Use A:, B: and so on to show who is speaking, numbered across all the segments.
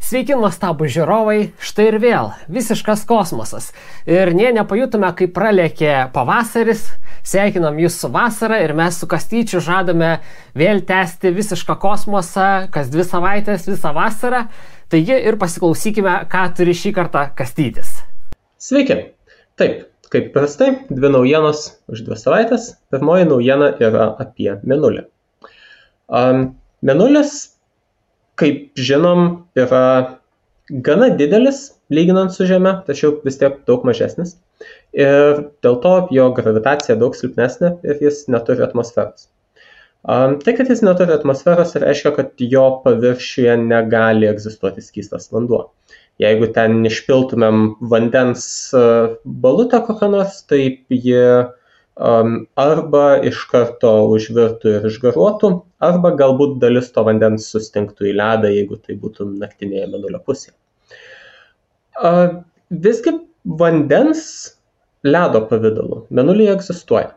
A: Sveiki, nuostabų žiūrovai, štai ir vėl visiškas kosmosas. Ir nepajutome, kaip pralėkė pavasaris, sveikinam jūs su vasara ir mes su Kastyčiu žadame vėl tęsti visišką kosmosą, kas 2 savaitės, visą vasarą. Taigi ir pasiklausykime, ką turi šį kartą Kastytis.
B: Sveiki. Taip, kaip prastai, 2 naujienos už 2 savaitės. Pirmoji naujiena yra apie Mėnulį. Mėnulis, kaip žinom, yra gana didelis, lyginant su Žeme, tačiau vis tiek daug mažesnis. Ir dėl to jo gravitacija daug silpnesnė ir jis neturi atmosferos. Tai, kad jis neturi atmosferos, reiškia, kad jo paviršiuje negali egzistuoti skystas vanduo. Jeigu ten išpiltumėm vandens balutę kokią nors, tai ji arba iš karto užvirtų ir išgaruotų, arba galbūt dalis to vandens sustingtų į ledą, jeigu tai būtų naktinėje Mėnulio pusėje. Visgi vandens ledo pavidalu Mėnulyje egzistuoja.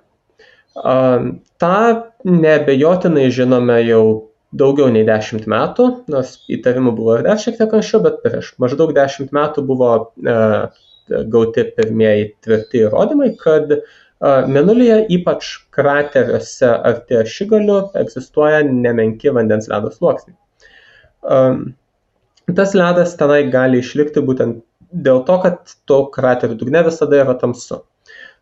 B: Ta neabejotinai žinome jau daugiau nei 10 metų, nors įtarimų buvo ir dar šiek tiek anksčiau, bet prieš maždaug 10 metų buvo gauti pirmieji tvirti įrodymai, kad Mėnulyje, ypač krateriuose arti ašigalių, egzistuoja nemenki vandens ledo sluoksniai. Tas ledas tenai gali išlikti būtent dėl to, kad to kraterių dugne visada yra tamsu.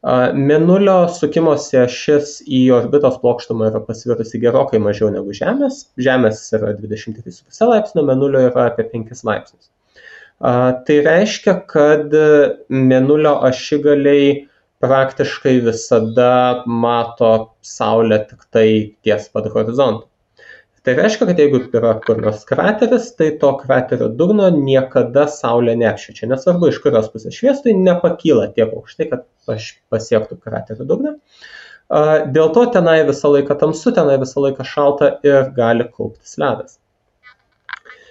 B: Mėnulio sukimosi ašis į orbitos plokštumą yra pasvirusi gerokai mažiau negu Žemės. Žemės yra 23,5 laipsnio, Mėnulio yra apie 5 laipsnius. Tai reiškia, kad Mėnulio ašigaliai praktiškai visada mato Saulę tik tai ties pat horizontu. Tai reiškia, kad jeigu yra kur nors krateris, tai to kraterio dugno niekada Saulė neapšviečia. Nesvarbu, iš kurios pusės šviestų, nepakyla tiek aukštai, kad pasiektų kraterio dugną. Dėl to tenai visą laiką tamsu, tenai visą laiką šalta ir gali kauptis ledas.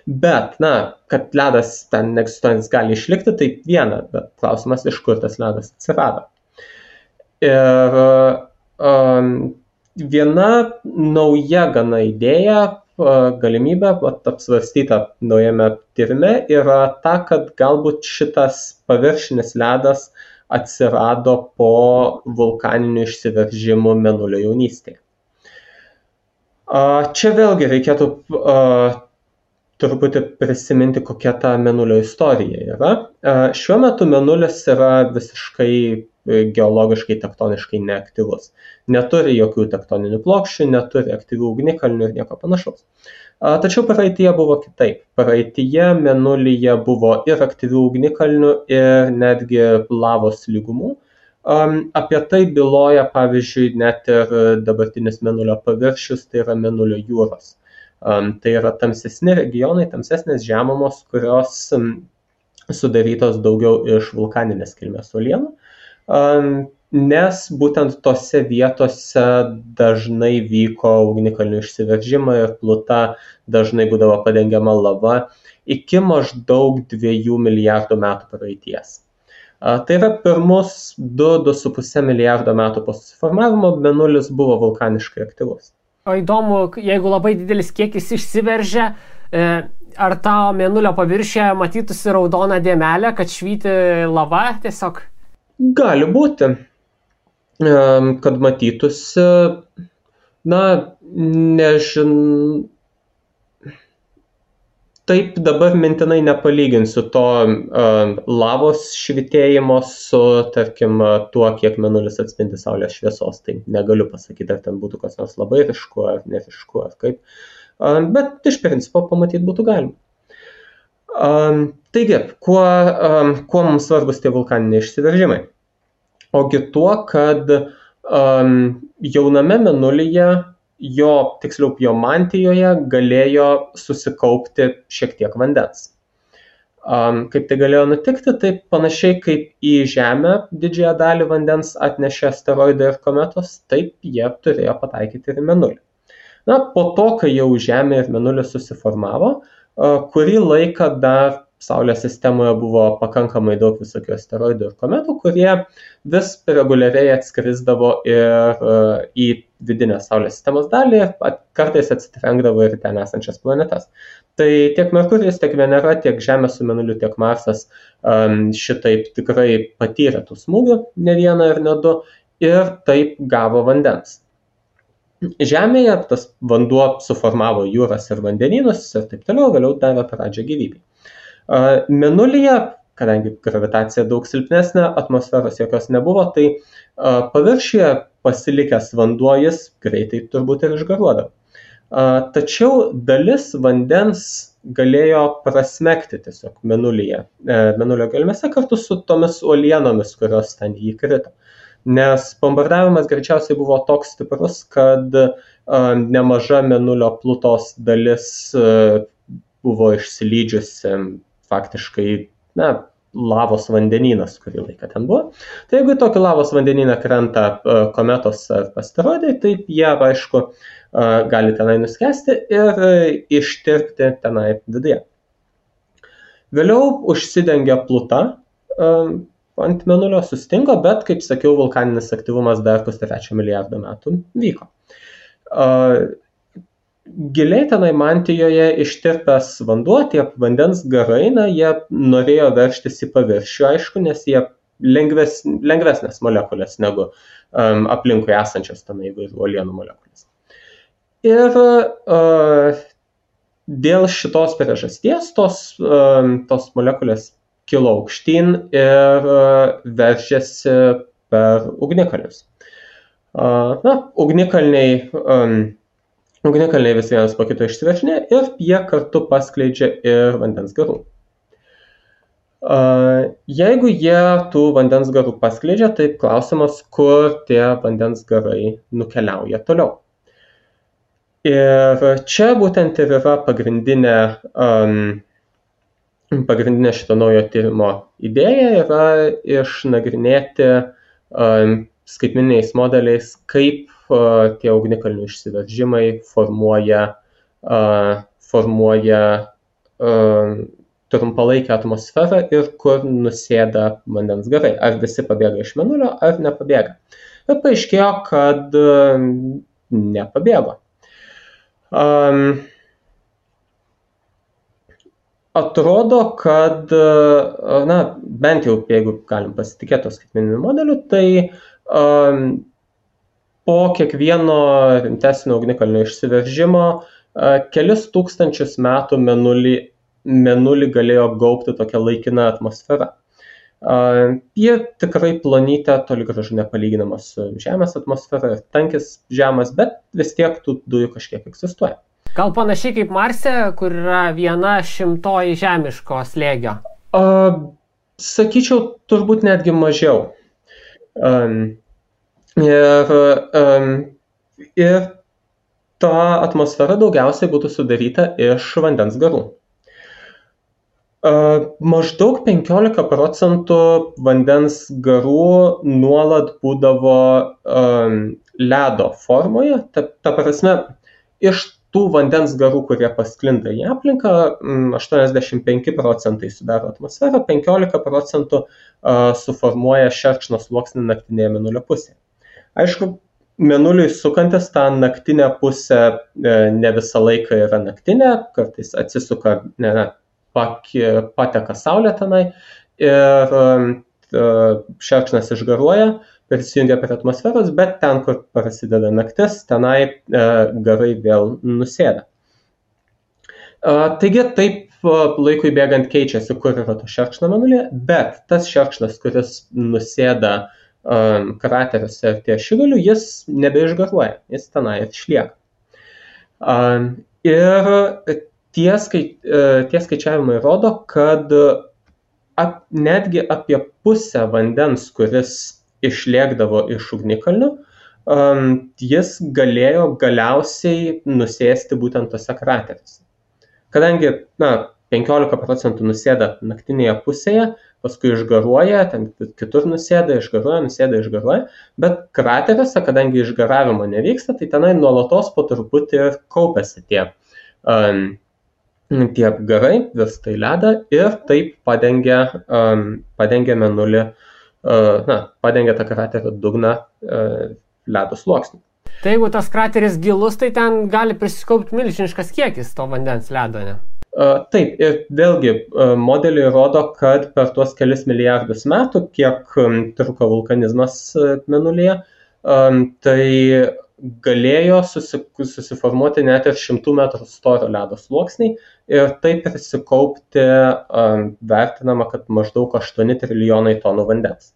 B: Bet, kad ledas ten neegzistuojantis gali išlikti, tai viena, bet klausimas, iš kur tas ledas atsirado. Ir viena nauja gana idėja, galimybė apsvarstyta naujame tyrime yra ta, kad galbūt šitas paviršinis ledas atsirado po vulkaninių išsiveržimų Mėnulio jaunystėje. Čia vėlgi reikėtų truputį prisiminti, kokia ta Mėnulio istorija yra. Šiuo metu Mėnulis yra visiškai geologiškai, tektoniškai neaktyvus. Neturi jokių tektoninių plokščių, neturi aktyvių ugnikalnių ir nieko panašaus. Tačiau praeityje buvo kitaip. Praeityje Mėnulyje buvo ir aktyvių ugnikalnių, ir netgi lavos lygumų. Apie tai byloja, pavyzdžiui, net ir dabartinis Mėnulio paviršius, tai yra Mėnulio jūros. Tai yra tamsesni regionai, tamsesnės žemumos, kurios sudarytos daugiau iš vulkaninės kilmės uolienų, nes būtent tose vietose dažnai vyko ugnikalnių išsiveržimai ir pluta dažnai būdavo padengiama lava iki maždaug 2 milijardų metų praeities. Tai yra pirmus 2–2,5 milijardo metų po susiformavimo Mėnulis buvo vulkaniškai aktyvus.
A: O įdomu, jeigu labai didelis kiekis išsiveržia, ar tavo Mėnulio paviršiuje matytųsi raudona dėmelė, kad švyti lava tiesiog?
B: Gali būti, kad matytųsi, taip dabar mintinai nepalyginsiu to lavos švitėjimo su, tarkim, tuo, kiek Mėnulis atspindi Saulės šviesos. Tai negaliu pasakyti, ar ten būtų kas nors labai ryšku, ar nerišku, ar kaip. Bet iš principo pamatyti būtų galima. Taigi, kuo mums svarbus tie vulkaniniai išsiveržimai? Ogi tuo, kad jauname Mėnulyje, tiksliau jo mantijoje, galėjo susikaupti šiek tiek vandens. Kaip tai galėjo nutikti, tai panašiai kaip į Žemę didžiąją dalį vandens atnešė asteroidai ir kometos, taip jie turėjo pataikyti ir Mėnulį. Po to, kai jau Žemė ir Mėnulis susiformavo, kurį laiką dar Saulės sistemoje buvo pakankamai daug visokių asteroidų ir kometų, kurie vis reguliariai atskrisdavo ir į vidinę Saulės sistemos dalį, kartais atsitrenkdavo ir ten esančias planetas. Tai tiek Merkurijus, tiek Venera, tiek Žemė su Mėnuliu, tiek Marsas šitaip tikrai patyrė tų smūgių, ne vieną ir ne du, ir taip gavo vandens. Žemėje tas vanduo suformavo jūras ir vandenynus ir taip toliau, vėliau davė pradžią gyvybei. Mėnulyje, kadangi gravitacija daug silpnesnė, atmosferos jokios nebuvo, tai paviršiuje pasilikęs vanduo jis greitai turbūt ir išgaruodavo. Tačiau dalis vandens galėjo prasmegti tiesiog Mėnulyje, Mėnulio gelmėse kartu su tomis uolienomis, kurios ten jį krito. Nes bombardavimas greičiausiai buvo toks stiprus, kad nemaža Mėnulio plutos dalis buvo išsilydžiusi faktiškai, lavos vandenynas, kurį laiką ten buvo. Tai jeigu tokį lavos vandenyną krenta kometos ar asteroidai, tai jie, aišku, gali tenai nuskesti ir ištirpti tenai viduje. Vėliau užsidengia pluta ant Mėnulio, sustingo, bet, kaip sakiau, vulkaninis aktyvumas dar 3 milijardo metų vyko. Giliai tenai mantijoje ištirpęs vanduo, tie vandens garai, jie norėjo veržtis į paviršių, aišku, nes jie lengvesnės molekulės negu aplinkui esančios tenai įvairių uolienų molekulės. Ir dėl šitos priežasties tos molekulės kilo aukštyn ir veržėsi per ugnikalnius. Ugnikalniai vis vienas po kito išsiveržinė ir jie kartu paskleidžia ir vandens garų. Jeigu jie tų vandens garų paskleidžia, tai klausimas, kur tie vandens garai nukeliauja toliau. Ir čia būtent ir yra pagrindinė šito naujo tyrimo idėja yra išnagrinėti skaitmeniniais modeliais, kaip tie ugnikalnių išsiveržimai formuoja trumpalaikę atmosferą ir kur nusėda vandens garai. Ar visi pabėga iš Mėnulio, ar nepabėga. Ir paaiškėjo, kad nepabėgo. Atrodo, kad, bent jau, jeigu galim pasitikėti skaitmeniniu modeliu, tai po kiekvieno rimtesnio ugnikalnio išsiveržimo kelis tūkstančius metų Mėnulį galėjo gaubti tokia laikina atmosfera. Jie tikrai plonytė, toli gražu nepalyginama su Žemės atmosfera ir tankis žemas, bet vis tiek tų dujų kažkiek egzistuoja.
A: Gal panašiai kaip Marse, kur yra 1/100 žemiško slėgio?
B: Sakyčiau, turbūt netgi mažiau. Ir ta atmosfera daugiausiai būtų sudaryta iš vandens garų. Maždaug 15% vandens garų nuolat būdavo ledo formoje. Ta prasme, iš tų vandens garų, kurie pasklinda į aplinką, 85% sudaro atmosferą, 15% suformuoja šerkšno sluoksnį naktinėje Mėnulio pusėje. Aišku, Mėnuliui sukantis tą naktinę pusę ne visą laiką yra naktinė, kartais atsisuka, pateka saulė tenai ir šerkšnas išgaruoja, prisijungia prie atmosferos, bet ten, kur prasideda naktis, tenai garai vėl nusėda. Taigi taip laikui bėgant keičiasi, kur yra to šerkšno Mėnulyje, bet tas šerkšnas, kuris nusėda krateriuose ir ties šigaliu, jis nebeišgaruoja, jis tenai išlieka. Ir tie skaičiavimai rodo, kad netgi apie pusę vandens, kuris išlėkdavo iš ugnikalnių, jis galėjo galiausiai nusėsti būtent tose krateriuose. Kadangi 15% nusėda naktinėje pusėje, paskui išgaruoja, ten kitur nusėda, išgaruoja, bet krateriuose, kadangi išgaravimo nevyksta, tai tenai nuolatos po truputį ir kaupiasi tie garai, virsta į ledą ir taip padengia Mėnulį, padengia tą kraterio dugną ledo sluoksniu.
A: Tai jeigu tas krateris gilus, tai ten gali prisikaupti milžiniškas kiekis to vandens ledo, ne?
B: Taip, ir vėlgi modeliai rodo, kad per tuos kelis milijardus metų, kiek truko vulkanizmas Mėnulyje, tai galėjo susiformuoti net ir 100 metrų storio ledo sluoksniai ir taip prisikaupti vertinama, kad maždaug 8 trilijonai tonų vandens.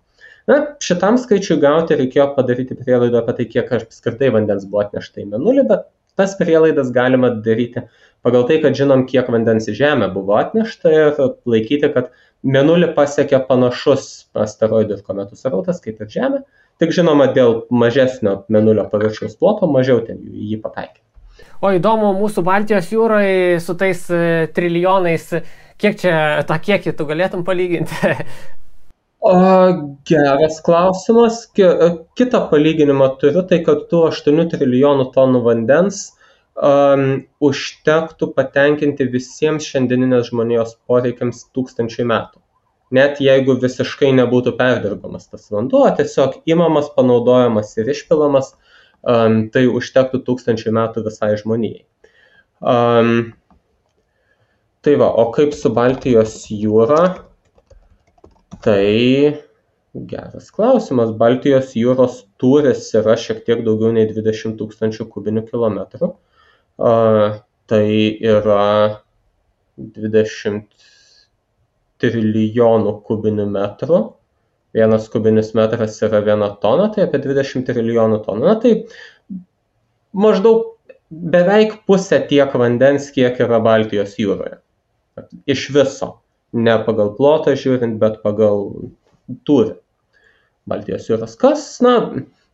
B: Na, šitam skaičiui gauti reikėjo padaryti prielaidą apie tai, kiek apskritai vandens buvo atnešta į Mėnulį, bet tas prielaidas galima daryti pagal tai, kad žinom, kiek vandens į Žemę buvo atnešta ir laikyti, kad Mėnulį pasiekė panašus asteroidų ir kometų srautas kaip ir Žemė, tik žinoma, dėl mažesnio Mėnulio paviršiaus ploto mažiau ten jį pataikė.
A: O įdomu, mūsų Baltijos jūroje su tais trilijonais, kiek čia tą kiekį tu galėtum palyginti?
B: Geras klausimas. Kitą palyginimą turiu, tai kad tų 8 trilijonų tonų vandens užtektų patenkinti visiems šiandieninės žmonijos poreikiams 1000 metų. Net jeigu visiškai nebūtų perdirbamas tas vanduo, tiesiog imamas, panaudojamas ir išpilamas, tai užtektų 1000 metų visai žmonijai. Tai va, o kaip su Baltijos jūra? Tai geras klausimas. Baltijos jūros tūris yra šiek tiek daugiau nei 20 000 kubinių kilometrų. Tai yra 20 trilijonų kubinių metrų. Vienas kubinis metras yra 1 tona, tai apie 20 trilijonų tonų. Na, tai maždaug beveik pusė tiek vandens, kiek yra Baltijos jūroje. Iš viso. Ne pagal plotą žiūrint, bet pagal tūrį. Baltijos jūros kas, na,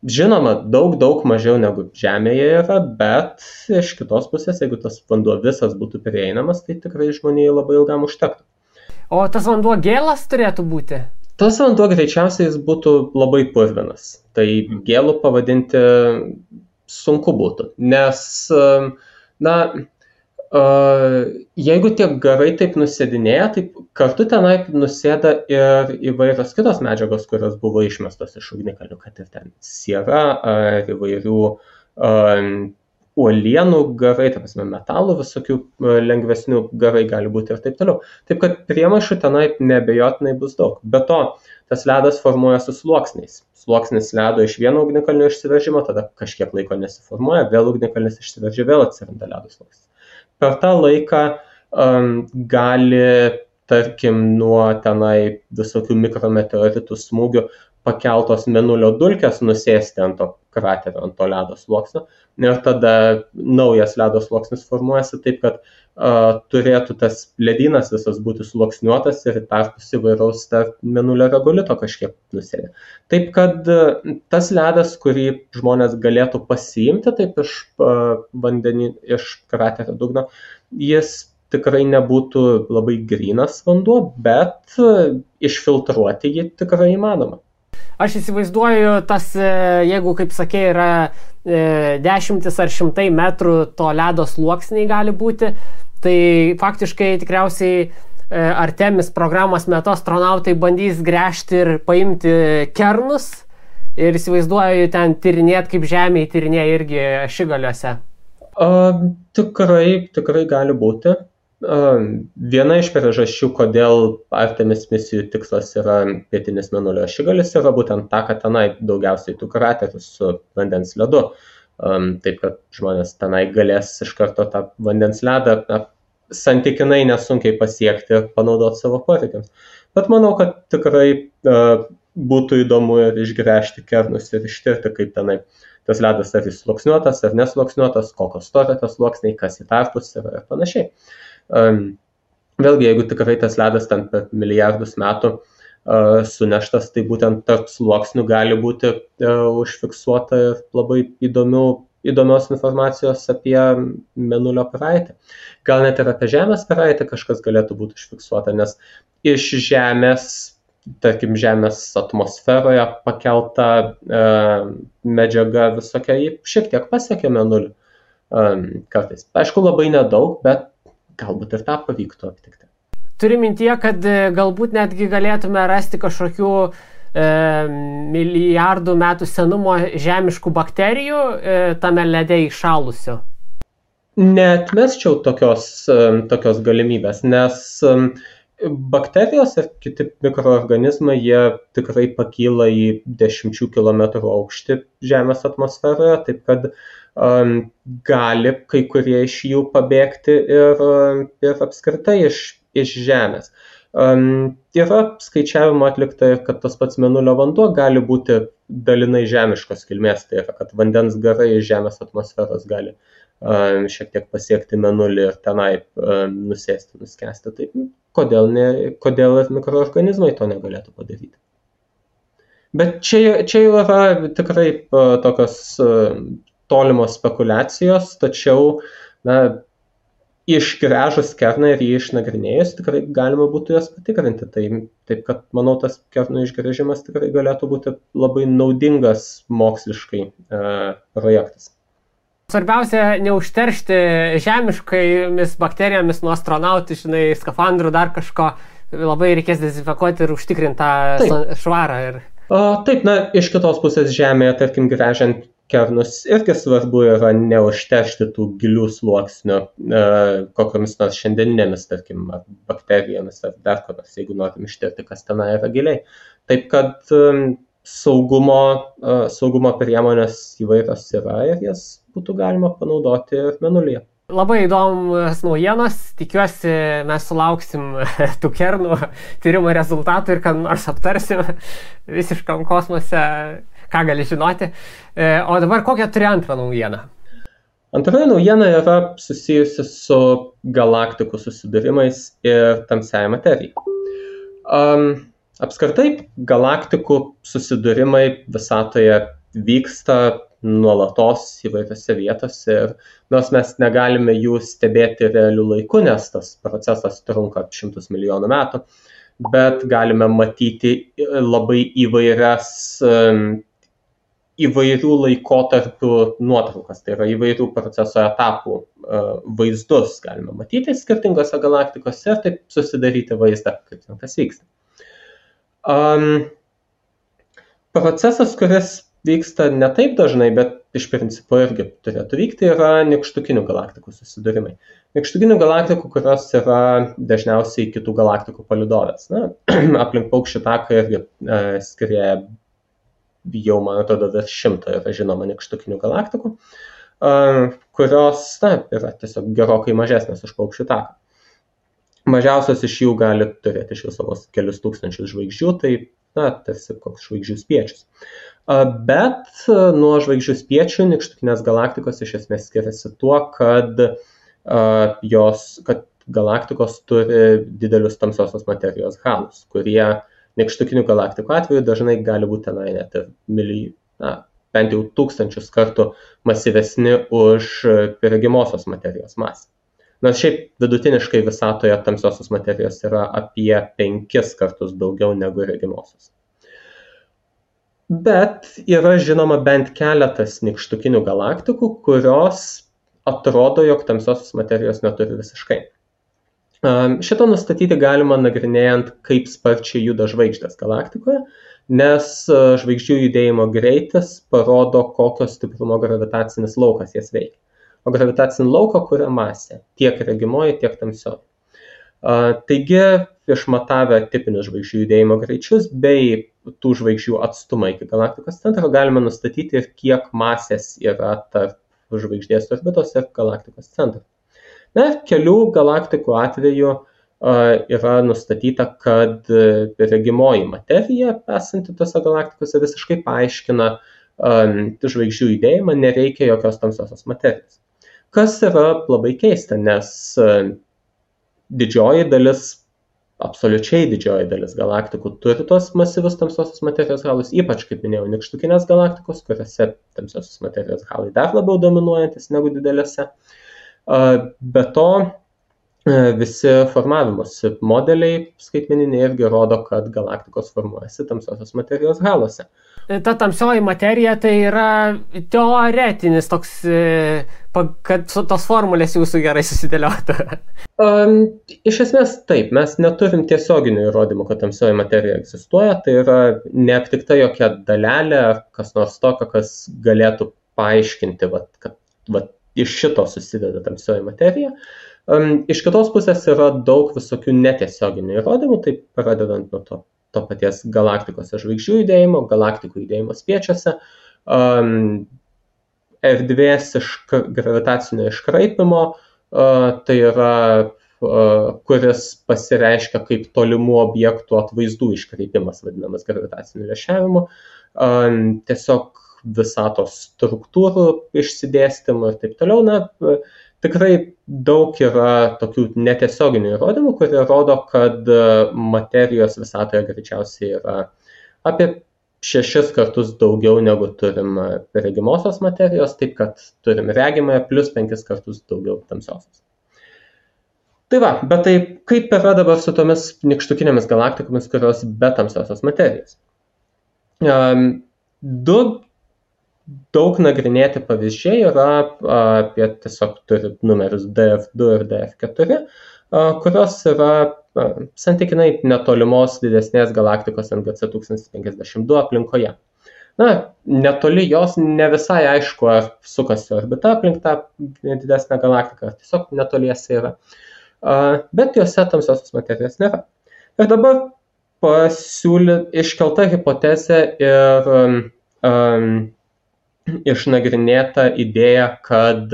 B: žinoma, daug mažiau negu Žemėje yra, bet iš kitos pusės, jeigu tas vanduo visas būtų prieinamas, tai tikrai žmonijai labai ilgam užtektų.
A: O tas vanduo gėlas turėtų būti?
B: Tas vanduo greičiausiai jis būtų labai purvinas. Tai gėlų pavadinti sunku būtų, nes, na, jeigu tie garai taip nusėdinėja, tai kartu tenai nusėda ir įvairios kitos medžiagos, kurios buvo išmestos iš ugnikalnių, kad ir ten siera ar įvairių uolienų garai, ta prasme metalų visokių lengvesnių garai gali būti ir taip toliau. Taip kad priemaišų tenai neabejotinai bus daug. Be to, tas ledas formuojasi sluoksniais. Sluoksnis ledo iš vieno ugnikalnio išsiveržimo, tada kažkiek laiko nesiformuoja, vėl ugnikalnis išsiveržia, vėl atsiranda ledo sluoksnis. Per tą laiką gali, tarkim, nuo tenai visokių mikrometeoritų smūgių pakeltos Mėnulio dulkės nusėsti ant to kraterio, ant to ledo sluoksnio. Ir tada naujas ledo sluoksnis formuojasi taip, kad turėtų tas ledynas visas būti sluoksniuotas ir tarpus įvairaus tarp Mėnulio regolito kažkiek nusėdė. Taip, kad tas ledas, kurį žmonės galėtų pasiimti taip iš vandenį, iš kraterio dugno, jis tikrai nebūtų labai grynas vanduo, bet išfiltruoti jį tikrai įmanoma.
A: Aš įsivaizduoju, tas, jeigu, kaip sakė, yra dešimtis ar šimtai metrų to ledo sluoksniai gali būti, tai faktiškai tikriausiai Artemis programos metu astronautai bandys gręžti ir paimti kernus ir įsivaizduoju ten tyrinėti, kaip Žemėje tyrinėja irgi ašigaliuose.
B: Tikrai gali būti. Viena iš priežasčių, kodėl Artemis misijų tikslas yra pietinis Mėnulio ašigalis, yra būtent ta, kad tenai daugiausiai tų kraterių su vandens ledu. Taip, kad žmonės tenai galės iš karto tą vandens ledą santykinai nesunkiai pasiekti ir panaudoti savo poreikiams. Bet manau, kad tikrai būtų įdomu ir išgręžti kernus ir ištirti, kaip tenai tas ledas ar jis sluoksniuotas ar nesluoksniuotas, kokios storio tas sluoksniai, kas į tarpus ir panašiai. Vėlgi, jeigu tikrai tas ledas ten per milijardus metų suneštas, tai būtent tarp sluoksnių gali būti užfiksuota ir labai įdomios informacijos apie Mėnulio praeitį. Gal net ir apie Žemės praeitį kažkas galėtų būti užfiksuota, nes iš Žemės, tarkim, Žemės atmosferoje pakelta medžiaga visokia, ji šiek tiek pasiekė Mėnulį kartais. Aišku, labai nedaug, bet galbūt ir tą pavyktų aptikti.
A: Turi mintyje, kad galbūt netgi galėtume rasti kažkokių milijardų metų senumo žemiškų bakterijų tame lede įšalusių?
B: Neatmesčiau tokios galimybės, nes bakterijos ir kiti mikroorganizmai, jie tikrai pakyla į 10 kilometrų aukštį Žemės atmosferoje, taip kad gali kai kurie iš jų pabėgti ir apskritai iš Žemės. Yra skaičiavimo atlikta, kad tas pats Mėnulio vanduo gali būti dalinai žemiškos kilmės, tai yra, kad vandens garai iš Žemės atmosferos gali šiek tiek pasiekti Mėnulį ir tenai nusėsti, nuskęsti. Tai kodėl ir mikroorganizmai to negalėtų padaryti? Bet čia jau yra tikrai tokios tolimos spekulacijos, tačiau išgręžus kerną ir jį išnagrinėjus tikrai galima būtų jas patikrinti. Taip kad, manau, tas kerno išgręžimas tikrai galėtų būti labai naudingas moksliškai projektas.
A: Svarbiausia, neužteršti žemiškomis bakterijomis nuo astronautų, skafandrų, dar kažko. Labai reikės dezinfekuoti ir užtikrinti tą švarą.
B: Taip, iš kitos pusės Žemėje, tarkim, gręžiant kernus, irgi svarbu yra neužteršti tų gilių sluoksnių kokiamis nors šiandieninėmis, tarkim, bakterijomis ar dar ko nors, jeigu norim ištirti, kas tenai yra giliai. Taip kad saugumo priemonės įvairios yra ir jas būtų galima panaudoti ir Mėnulyje.
A: Labai įdomus naujienos, tikiuosi mes sulauksim tų kernų tyrimo rezultatų ir kad nors aptarsim visiškam kosmose, ką gali žinoti. O dabar kokią turi antrą naujieną?
B: Antroji naujiena yra susijusi su galaktikų susidūrimais ir tamsiąja materija. Apskritai, galaktikų susidūrimai visatoje vyksta nuolatos įvairiose vietose ir nors mes negalime jų stebėti realiu laiku, nes tas procesas trunka šimtus milijonų metų, bet galime matyti labai įvairių laikotarpių nuotraukas, tai yra įvairių proceso etapų vaizdus galime matyti skirtingose galaktikose ir taip susidaryti vaizdą, kaip tas vyksta. Procesas, kuris vyksta ne taip dažnai, bet iš principo irgi turėtų vykti, yra nykštukinių galaktikų susidūrimai. Nykštukinių galaktikų, kurios yra dažniausiai kitų galaktikų palydovės. Aplink Paukščių taką irgi skrieja jau, man atrodo, virš 100 yra žinoma nykštukinių galaktikų, kurios yra tiesiog gerokai mažesnės už Paukščių taką. Mažiausios iš jų gali turėti iš viso vos kelius tūkstančius žvaigždžių, tai tarsi koks žvaigždžių spiečius. Bet nuo žvaigždžių spiečių nykštukinės galaktikos iš esmės skiriasi tuo, kad galaktikos turi didelius tamsiosios materijos halus, kurie nykštukinių galaktikų atveju dažnai gali būti net ir bent jau 1000 kartų masyvesni už regimosios materijos masę. Nors šiaip vidutiniškai visatoje tamsiosios materijos yra apie 5 kartus daugiau negu regimosios. Bet yra žinoma bent keletas nykštukinių galaktikų, kurios atrodo, jog tamsiosios materijos neturi visiškai. Šitą nustatyti galima nagrinėjant, kaip sparčiai juda žvaigždės galaktikoje, nes žvaigždžių judėjimo greitis parodo, kokio stiprumo gravitacinis laukas jas veikia. O gravitacinį lauką kuria masė, tiek regimoji, tiek tamsioji. Taigi, išmatavę tipinius žvaigždžių judėjimo greičius bei tų žvaigždžių atstumą iki galaktikos centro, galime nustatyti ir kiek masės yra tarp žvaigždės orbitos ir galaktikos centro. Kelių galaktikų atveju yra nustatyta, kad regimoji materija esanti tose galaktikose visiškai paaiškina žvaigždžių judėjimą, nereikia jokios tamsiosios materijos. Kas yra labai keista, nes absoliučiai didžioji dalis galaktikų turi tos masyvus tamsiosios materijos halus, ypač, kaip minėjau, nykštukinės galaktikos, kuriuose tamsiosios materijos halai dar labiau dominuojantis negu didelėse. Be to, visi formavimosi modeliai skaitmeniniai irgi rodo, kad galaktikos formuojasi tamsiosios materijos halose.
A: Ta tamsioji materija tai yra teoretinis toks, kad tos formulės jūsų gerai susidėliotų.
B: Iš esmės taip, mes neturim tiesioginių įrodymų, kad tamsioji materija egzistuoja, tai yra neaptikta jokia dalelė ar kas nors tokio, kas galėtų paaiškinti, kad iš šito susideda tamsioji materija. Iš kitos pusės yra daug visokių netiesioginių įrodymų, tai pradedant nuo to paties galaktikos žvaigždžių judėjimo, galaktikų judėjimo spiečiuose, erdvės gravitacinio iškraipimo, tai yra, kuris pasireiškia kaip tolimų objektų atvaizdų iškreipimas, vadinamas gravitaciniu lęšiavimu, tiesiog visatos struktūrų išsidėstymų ir taip toliau. Tikrai daug yra tokių netiesioginių įrodymų, kurie rodo, kad materijos visatoje greičiausiai yra apie 6 kartus daugiau negu turim regimosios materijos, taip kad turim regimąją plus 5 kartus daugiau tamsiosios. Tai va, bet tai kaip yra dabar su tomis nykštukinėmis galaktikomis, kurios be tamsiosios materijos? Du daug nagrinėti pavyzdžiai yra apie tiesiog turi numerius DF2 ir DF4, kurios yra santykinai netolimos didesnės galaktikos NGC 1052 aplinkoje. Netoli jos ne visai aišku, ar sukasi orbita aplink tą didesnę galaktiką, ar tiesiog netoliese yra. Bet jose tamsiosios materijos nėra. Ir dabar iškelta hipotezė ir išnagrinėta idėja, kad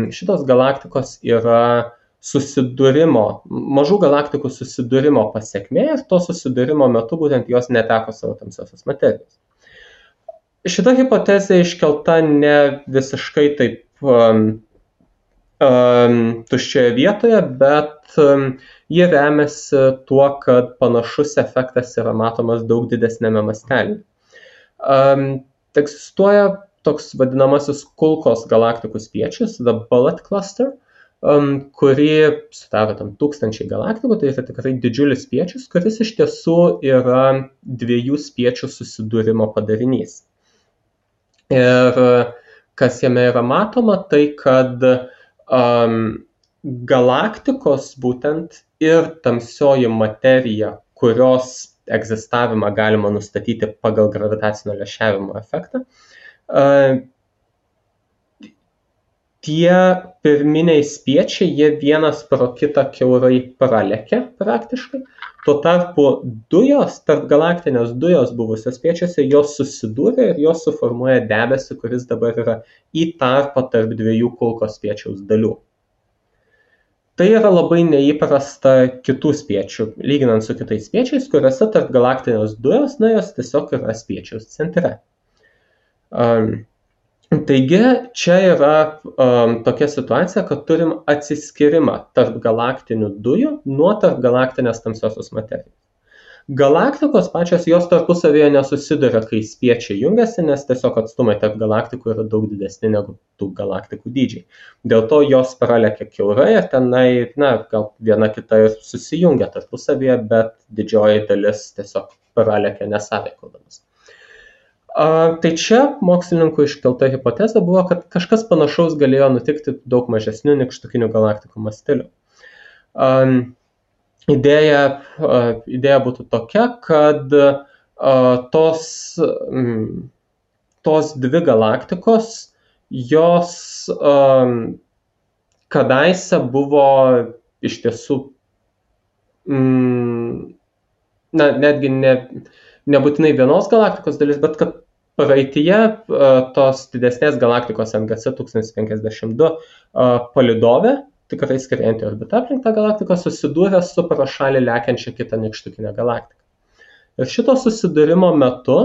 B: šitos galaktikos yra mažų galaktikų susidūrimo pasekmė ir to susidūrimo metu būtent jos neteko savo tamsiosios materijos. Šita hipotezė iškelta ne visiškai taip tuščioje vietoje, bet ji remiasi tuo, kad panašus efektas yra matomas daug didesnėme mastelyje. Egzistuoja toks vadinamasis kulkos galaktikų spiečius, the Bullet Cluster, kurį sudaro 1000 galaktikų, tai yra tikrai didžiulis spiečius, kuris iš tiesų yra 2 spiečių susidūrimo padarinys. Ir kas jame yra matoma, tai kad galaktikos būtent ir tamsioji materija, kurios egzistavimą galima nustatyti pagal gravitacinio lęšiavimo efektą, tie pirminiai spiečiai, jie vienas pro kitą kiaurai pralekia praktiškai. Tuo tarpu tarpgalaktinės dujos buvusios spiečiuose, jos susidūrė ir jos suformuoja debesį, kuris dabar yra į tarpą tarp 2 kulkos spiečiaus dalių. Tai yra labai neįprasta kitų spiečių, lyginant su kitais spiečiais, kuriuose tarpgalaktinės dujos, jos tiesiog yra spiečiaus centre. Taigi, čia yra tokia situacija, kad turim atsiskyrimą tarp galaktinių dujų nuo tarpgalaktinės tamsiosios materijos. Galaktikos pačios jos tarpusavėje nesusiduria, kai spiečiai jungiasi, nes tiesiog atstumai tarp galaktikų yra daug didesni negu tų galaktikų dydžiai. Dėl to jos pralekia kiaurai ir tenai, gal viena kita ir susijungia tarpusavėje, bet didžioji dalis tiesiog pralekia nesąveikaudamas. Tai čia mokslininkų iškelta hipotezė buvo, kad kažkas panašaus galėjo nutikti daug mažesnių nykštukinių galaktikų masteliu. Idėja būtų tokia, kad tos 2 galaktikos, jos kadaise buvo iš tiesų, netgi nebūtinai vienos galaktikos dalis, bet kad praeityje tos didesnės galaktikos NGC 1052 palydovė, tikrai skriejantį orbitą aplink tą galaktiką, susidūrė su pro šalį lekiančia kitą nykštukinę galaktiką. Ir šito susidūrimo metu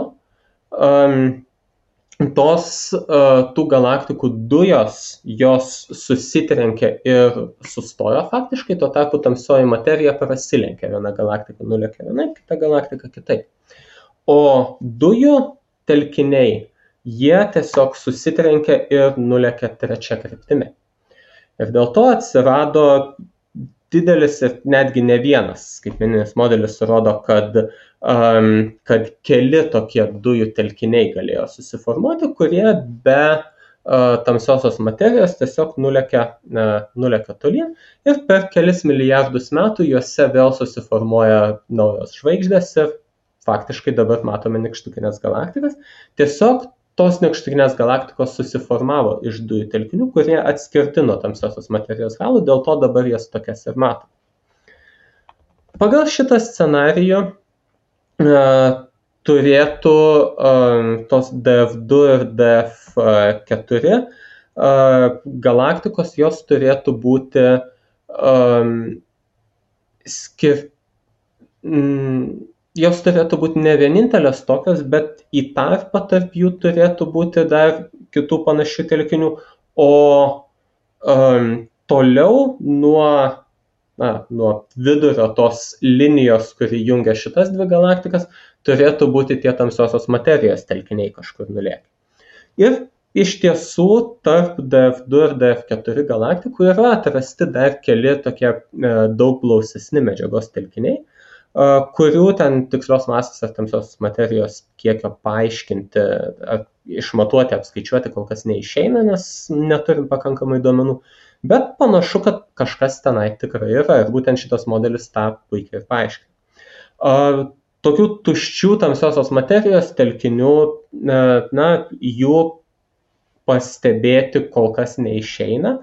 B: tų galaktikų dujos, jos susitrenkė ir sustojo faktiškai, tuo tarpu tamsioji materija prasilenkė, viena galaktika nulėkė vienaip, kita galaktika kitaip. O dujų telkiniai, jie tiesiog susitrenkė ir nulėkė trečia kryptimi. Ir dėl to atsirado didelis ir netgi ne vienas skaitmeninis modelis rodo, kad keli tokie dujų telkiniai galėjo susiformuoti, kurie be tamsiosios materijos tiesiog nulekia tolyn ir per kelis milijardus metų juose vėl susiformuoja naujos žvaigždės ir faktiškai dabar matome nykštukinės galaktikas. Tiesiog tos nykštukinės galaktikos susiformavo iš dujų telkinių, kurie atskirti nuo tamsiosios materijos halų, dėl to dabar jas tokias ir matome. Pagal šitą scenarijų turėtų tos DF2 ir DF4 galaktikos, jos turėtų būti jos turėtų būti ne vienintelės tokios, bet į tarpą tarp jų turėtų būti dar kitų panašių telkinių, o toliau nuo vidurio tos linijos, kuri jungia šitas dvi galaktikas, turėtų būti tie tamsiosios materijos telkiniai kažkur nulėkę. Ir iš tiesų tarp DF2 ir DF4 galaktikų yra atrasti dar keli tokie daug blausesni medžiagos telkiniai, kurių ten tikslios masės ar tamsiosios materijos kiekio paaiškinti, išmatuoti, apskaičiuoti kol kas neišeina, nes neturim pakankamai duomenų. Bet panašu, kad kažkas tenai tikrai yra ir būtent šitas modelis tą puikiai paaiškina. Tokių tuščių tamsiosios materijos telkinių, jų pastebėti kol kas neišeina,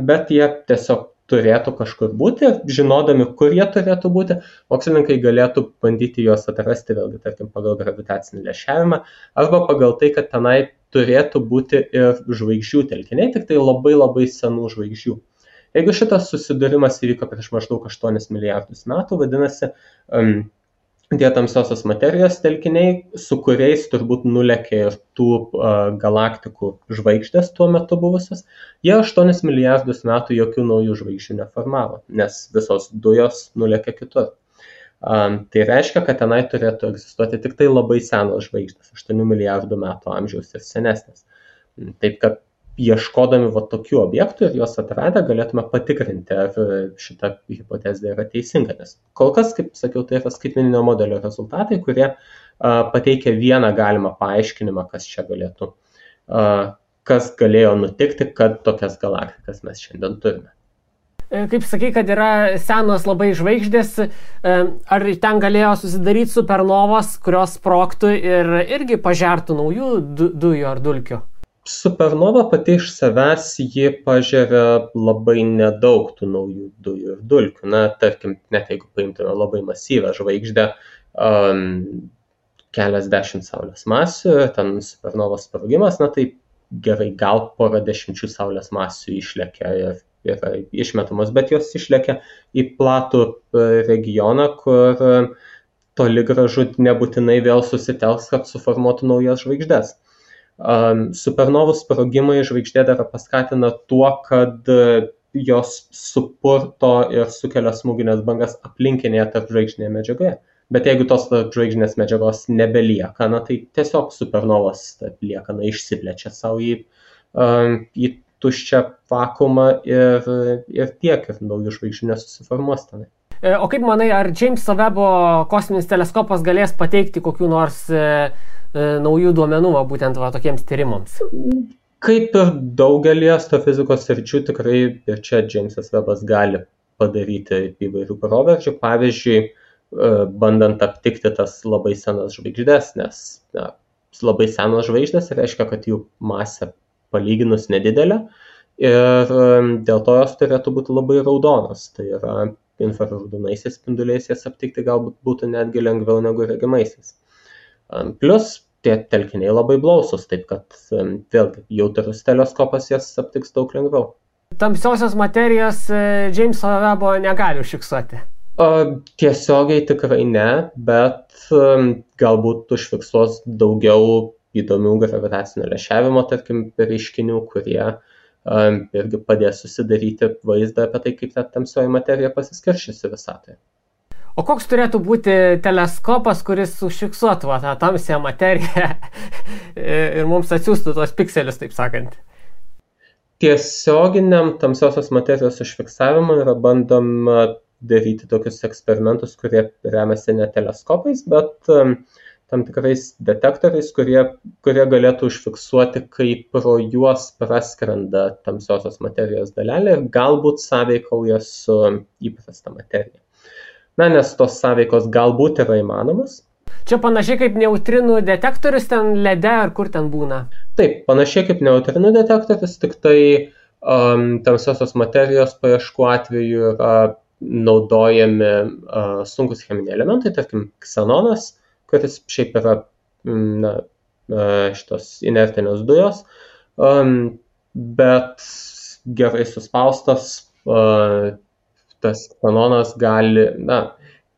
B: bet jie tiesiog turėtų kažkur būti, žinodami, kur jie turėtų būti, mokslininkai galėtų bandyti juos atrasti, vėlgi, tarkim, pagal gravitacinį lęšiavimą, arba pagal tai, kad tenai turėtų būti ir žvaigždžių telkiniai, tik tai labai labai senų žvaigždžių. Jeigu šitas susidūrimas įvyko prieš maždaug 8 milijardus metų, vadinasi, tie tamsiosios materijos telkiniai, su kuriais turbūt nulekė ir tų galaktikų žvaigždės tuo metu buvusios, jie 8 milijardus metų jokių naujų žvaigždžių neformavo, nes visos dujos nulekė kitur. Tai reiškia, kad tenai turėtų egzistuoti tik tai labai senos žvaigždės, 8 milijardų metų amžiaus ir senesnės. Taip kad ieškodami tokių objektų ir juos atradę galėtume patikrinti, ar šita hipotezė yra teisinga. Nes kol kas, kaip sakiau, tai yra skaitmeninio modelio rezultatai, kurie pateikia vieną galimą paaiškinimą, kas galėjo nutikti, kad tokias galaktikas mes šiandien turime.
A: Kaip sakai, kad yra senos labai žvaigždės, ar ten galėjo susidaryti supernovos, kurios sprogtų ir irgi pažertų naujų dujų ar dulkių?
B: Supernova pati iš savęs ji pažeria labai nedaug tų naujų dujų ir dulkių. Tarkim, net jeigu paimtume labai masyvę žvaigždę, keliasdešimt saulės masių, ten supernovos sprogimas, tai gerai, gal porą dešimčių saulės masių išlekia ir yra išmetamos, bet jos išlekia į platų regioną, kur toli gražu nebūtinai vėl susitelks, kad suformuotų naujas žvaigždės. Supernovų sprogimai žvaigždėdarą paskatina tuo, kad jos supurto ir sukelia smūginės bangas aplinkinėje tarpžvaigždinėje medžiagoje. Bet jeigu tos tarpžvaigždinės medžiagos nebelieka, tai tiesiog supernovos liekana išsiplečia savo į tuščią vakuumą ir tiek, ir naujų žvaigždžių nesusiformuos tenai.
A: O kaip manai, ar Jameso Webbo kosminis teleskopas galės pateikti kokių nors naujų duomenų būtent tokiems tyrimams?
B: Kaip ir daugelį astrofizikos sričių, tikrai ir čia Jamesas Webbas gali padaryti įvairių proveržių. Pavyzdžiui, bandant aptikti tas labai senas žvaigždės, nes labai senos žvaigždės reiškia, kad jų masė palyginus nedidelė ir dėl to jos turėtų būti labai raudonos. Tai yra infraraudonaisiais spinduliais jas aptikti galbūt būtų netgi lengviau negu regimaisiais. Plus tie telkiniai labai blausus, taip kad vėlgi jautrus teleskopas jas aptiks daug lengviau.
A: Tamsiosios materijos Jameso Webbo negali užfiksuoti?
B: Tiesiogiai tikrai ne, bet galbūt užfiksuos daugiau įdomių gravitacinio lęšiavimo, tarkim, reiškinių, kurie irgi padės susidaryti vaizdą apie tai, kaip ta tamsioji materija pasiskirščiusi visatoje.
A: O koks turėtų būti teleskopas, kuris užfiksuotų tą tamsią materiją ir mums atsiųstų tos pikselius, taip sakant?
B: tiesioginiam tamsiosios materijos užfiksavimui yra bandoma daryti tokius eksperimentus, kurie remiasi ne teleskopais, bet tam tikrais detektoriais, kurie galėtų užfiksuoti, kaip pro juos praskrenda tamsiosios materijos dalelė ir galbūt sąveikauja su įprasta materija. Na, nes tos sąveikos galbūt yra įmanomas.
A: Čia panašiai kaip neutrinų detektorius ten lede ar kur ten būna?
B: Taip, panašiai kaip neutrinų detektorius, tik tai tamsiosios materijos paieškų atveju yra naudojami sunkus cheminiai elementai, tarkim ksenonas, kuris šiaip yra šitos inertinės dujos, bet gerai suspaustas tas ksenonas gali,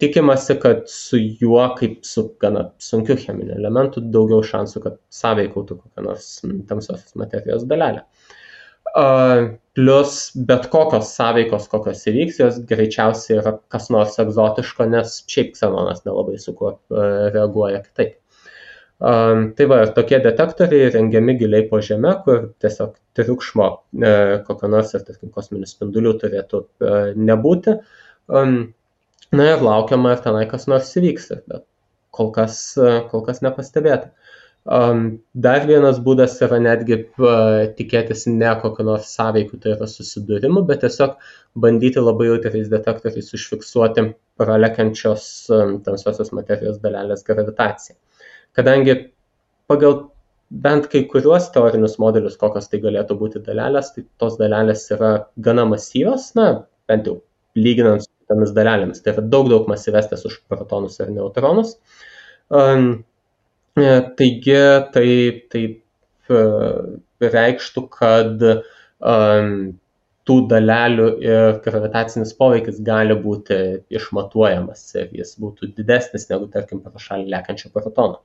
B: tikimasi, kad su juo, kaip su gana sunkiu cheminiu elementu, daugiau šansų, kad sąveikautų kokią nors tamsiosios materijos dalelę. Plus bet kokios sąveikos, kokios įvyks, jos greičiausiai yra kas nors egzotiško, nes šiaip ksenonas nelabai su kuo reaguoja kitaip. Tai va, ir tokie detektoriai rengiami giliai po žeme, kur tiesiog triukšmo kokio nors ir tarkim kosminių spindulių turėtų nebūti. Na ir laukiama, ar tenai kas nors įvyks, bet kol kas nepastebėta. Dar vienas būdas yra netgi tikėtis ne kokio nors sąveikų, tai yra susidūrimų, bet tiesiog bandyti labai jautriais detektoriais užfiksuoti pralekiančios tamsiosios materijos dalelės gravitaciją. Kadangi pagal bent kai kuriuos teorinius modelius, kokios tai galėtų būti dalelės, tai tos dalelės yra gana masyvios, bent jau lyginant su tomis dalelėmis. Tai yra daug masyvesnės už protonus ir neutronus. Taigi tai reikštų, kad tų dalelių ir gravitacinis poveikis gali būti išmatuojamas ir jis būtų didesnis negu, tarkim, pro šalį lekiančio protono.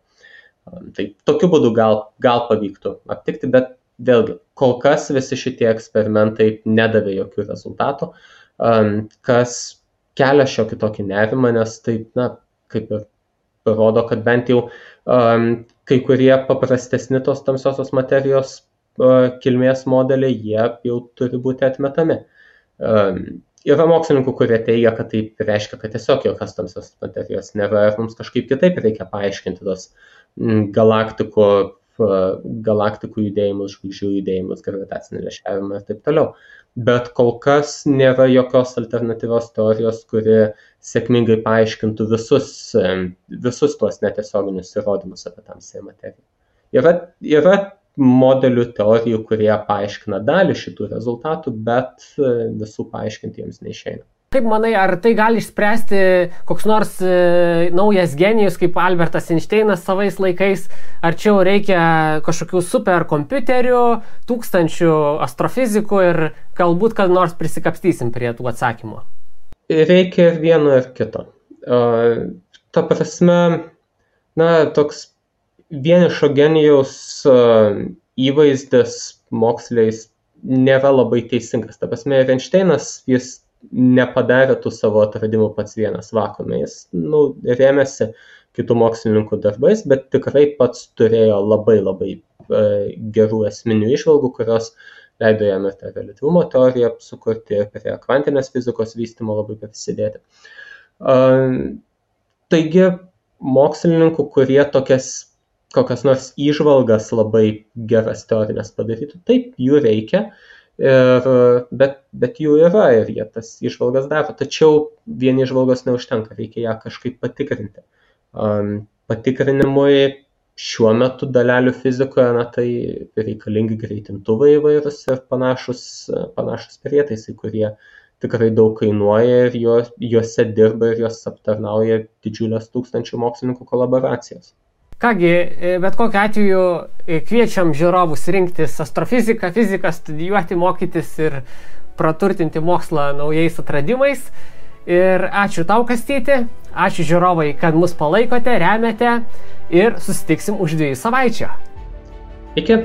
B: Tai tokiu būdu gal pavyktų aptikti, bet vėlgi, kol kas visi šitie eksperimentai nedavė jokių rezultatų, kas kelia šiokį tokį nerimą, nes tai, kaip ir rodo, kad bent jau kai kurie paprastesni tos tamsiosios materijos kilmės modeliai, jie jau turi būti atmetami. Yra mokslininkų, kurie teigia, kad tai reiškia, kad tiesiog jokios tamsios materijos nėra ir mums kažkaip kitaip reikia paaiškinti tos galaktikų judėjimus, žvaigždžių judėjimus, gravitacinį lęšiavimą ir taip toliau. Bet kol kas nėra jokios alternatyvios teorijos, kuri sėkmingai paaiškintų visus tuos netiesioginius įrodymus apie tamsiąją materiją. Yra modelių teorijų, kurie paaiškina dalį šitų rezultatų, bet visų paaiškinti jiems neišeina.
A: Kaip manai, ar tai gali išspręsti koks nors naujas genijus kaip Albertas Einšteinas savais laikais, ar čia jau reikia kažkokių superkompiuterių, tūkstančių astrofizikų ir galbūt kad nors prisikapstysim prie tų atsakymų?
B: Reikia ir vieno ir kito. Ta prasme, toks vienišo genijaus įvaizdis moksliais nėra labai teisingas. Ta prasme, Einšteinas, jis nepadarė tų savo atradimų pats vienas vakuume. Jis rėmėsi kitų mokslininkų darbais, bet tikrai pats turėjo labai gerų esminių įžvalgų, kurios leido jam ir tą reliatyvumo teoriją sukurti ir prie kvantinės fizikos vystymo labai prisidėti. Taigi, mokslininkų, kurie kokias nors įžvalgas labai geras teorinės padarytų, taip, jų reikia, bet jų yra ir jie tas įžvalgas daro, tačiau vien įžvalgos neužtenka, reikia ją kažkaip patikrinti. Patikrinimui šiuo metu dalelių fizikoje, tai reikalingi greitintuvai įvairūs ir panašus prietaisai, kurie tikrai daug kainuoja ir juose dirba ir juos aptarnauja didžiulės tūkstančių mokslininkų kolaboracijos.
A: Kągi, bet kokiu atveju kviečiam žiūrovus rinktis astrofiziką, fiziką, studijuoti, mokytis ir praturtinti mokslą naujais atradimais. Ir ačiū tau, Kastyti, ačiū žiūrovai, kad mus palaikote, remiate ir susitiksim už 2 savaičių.
B: Iki.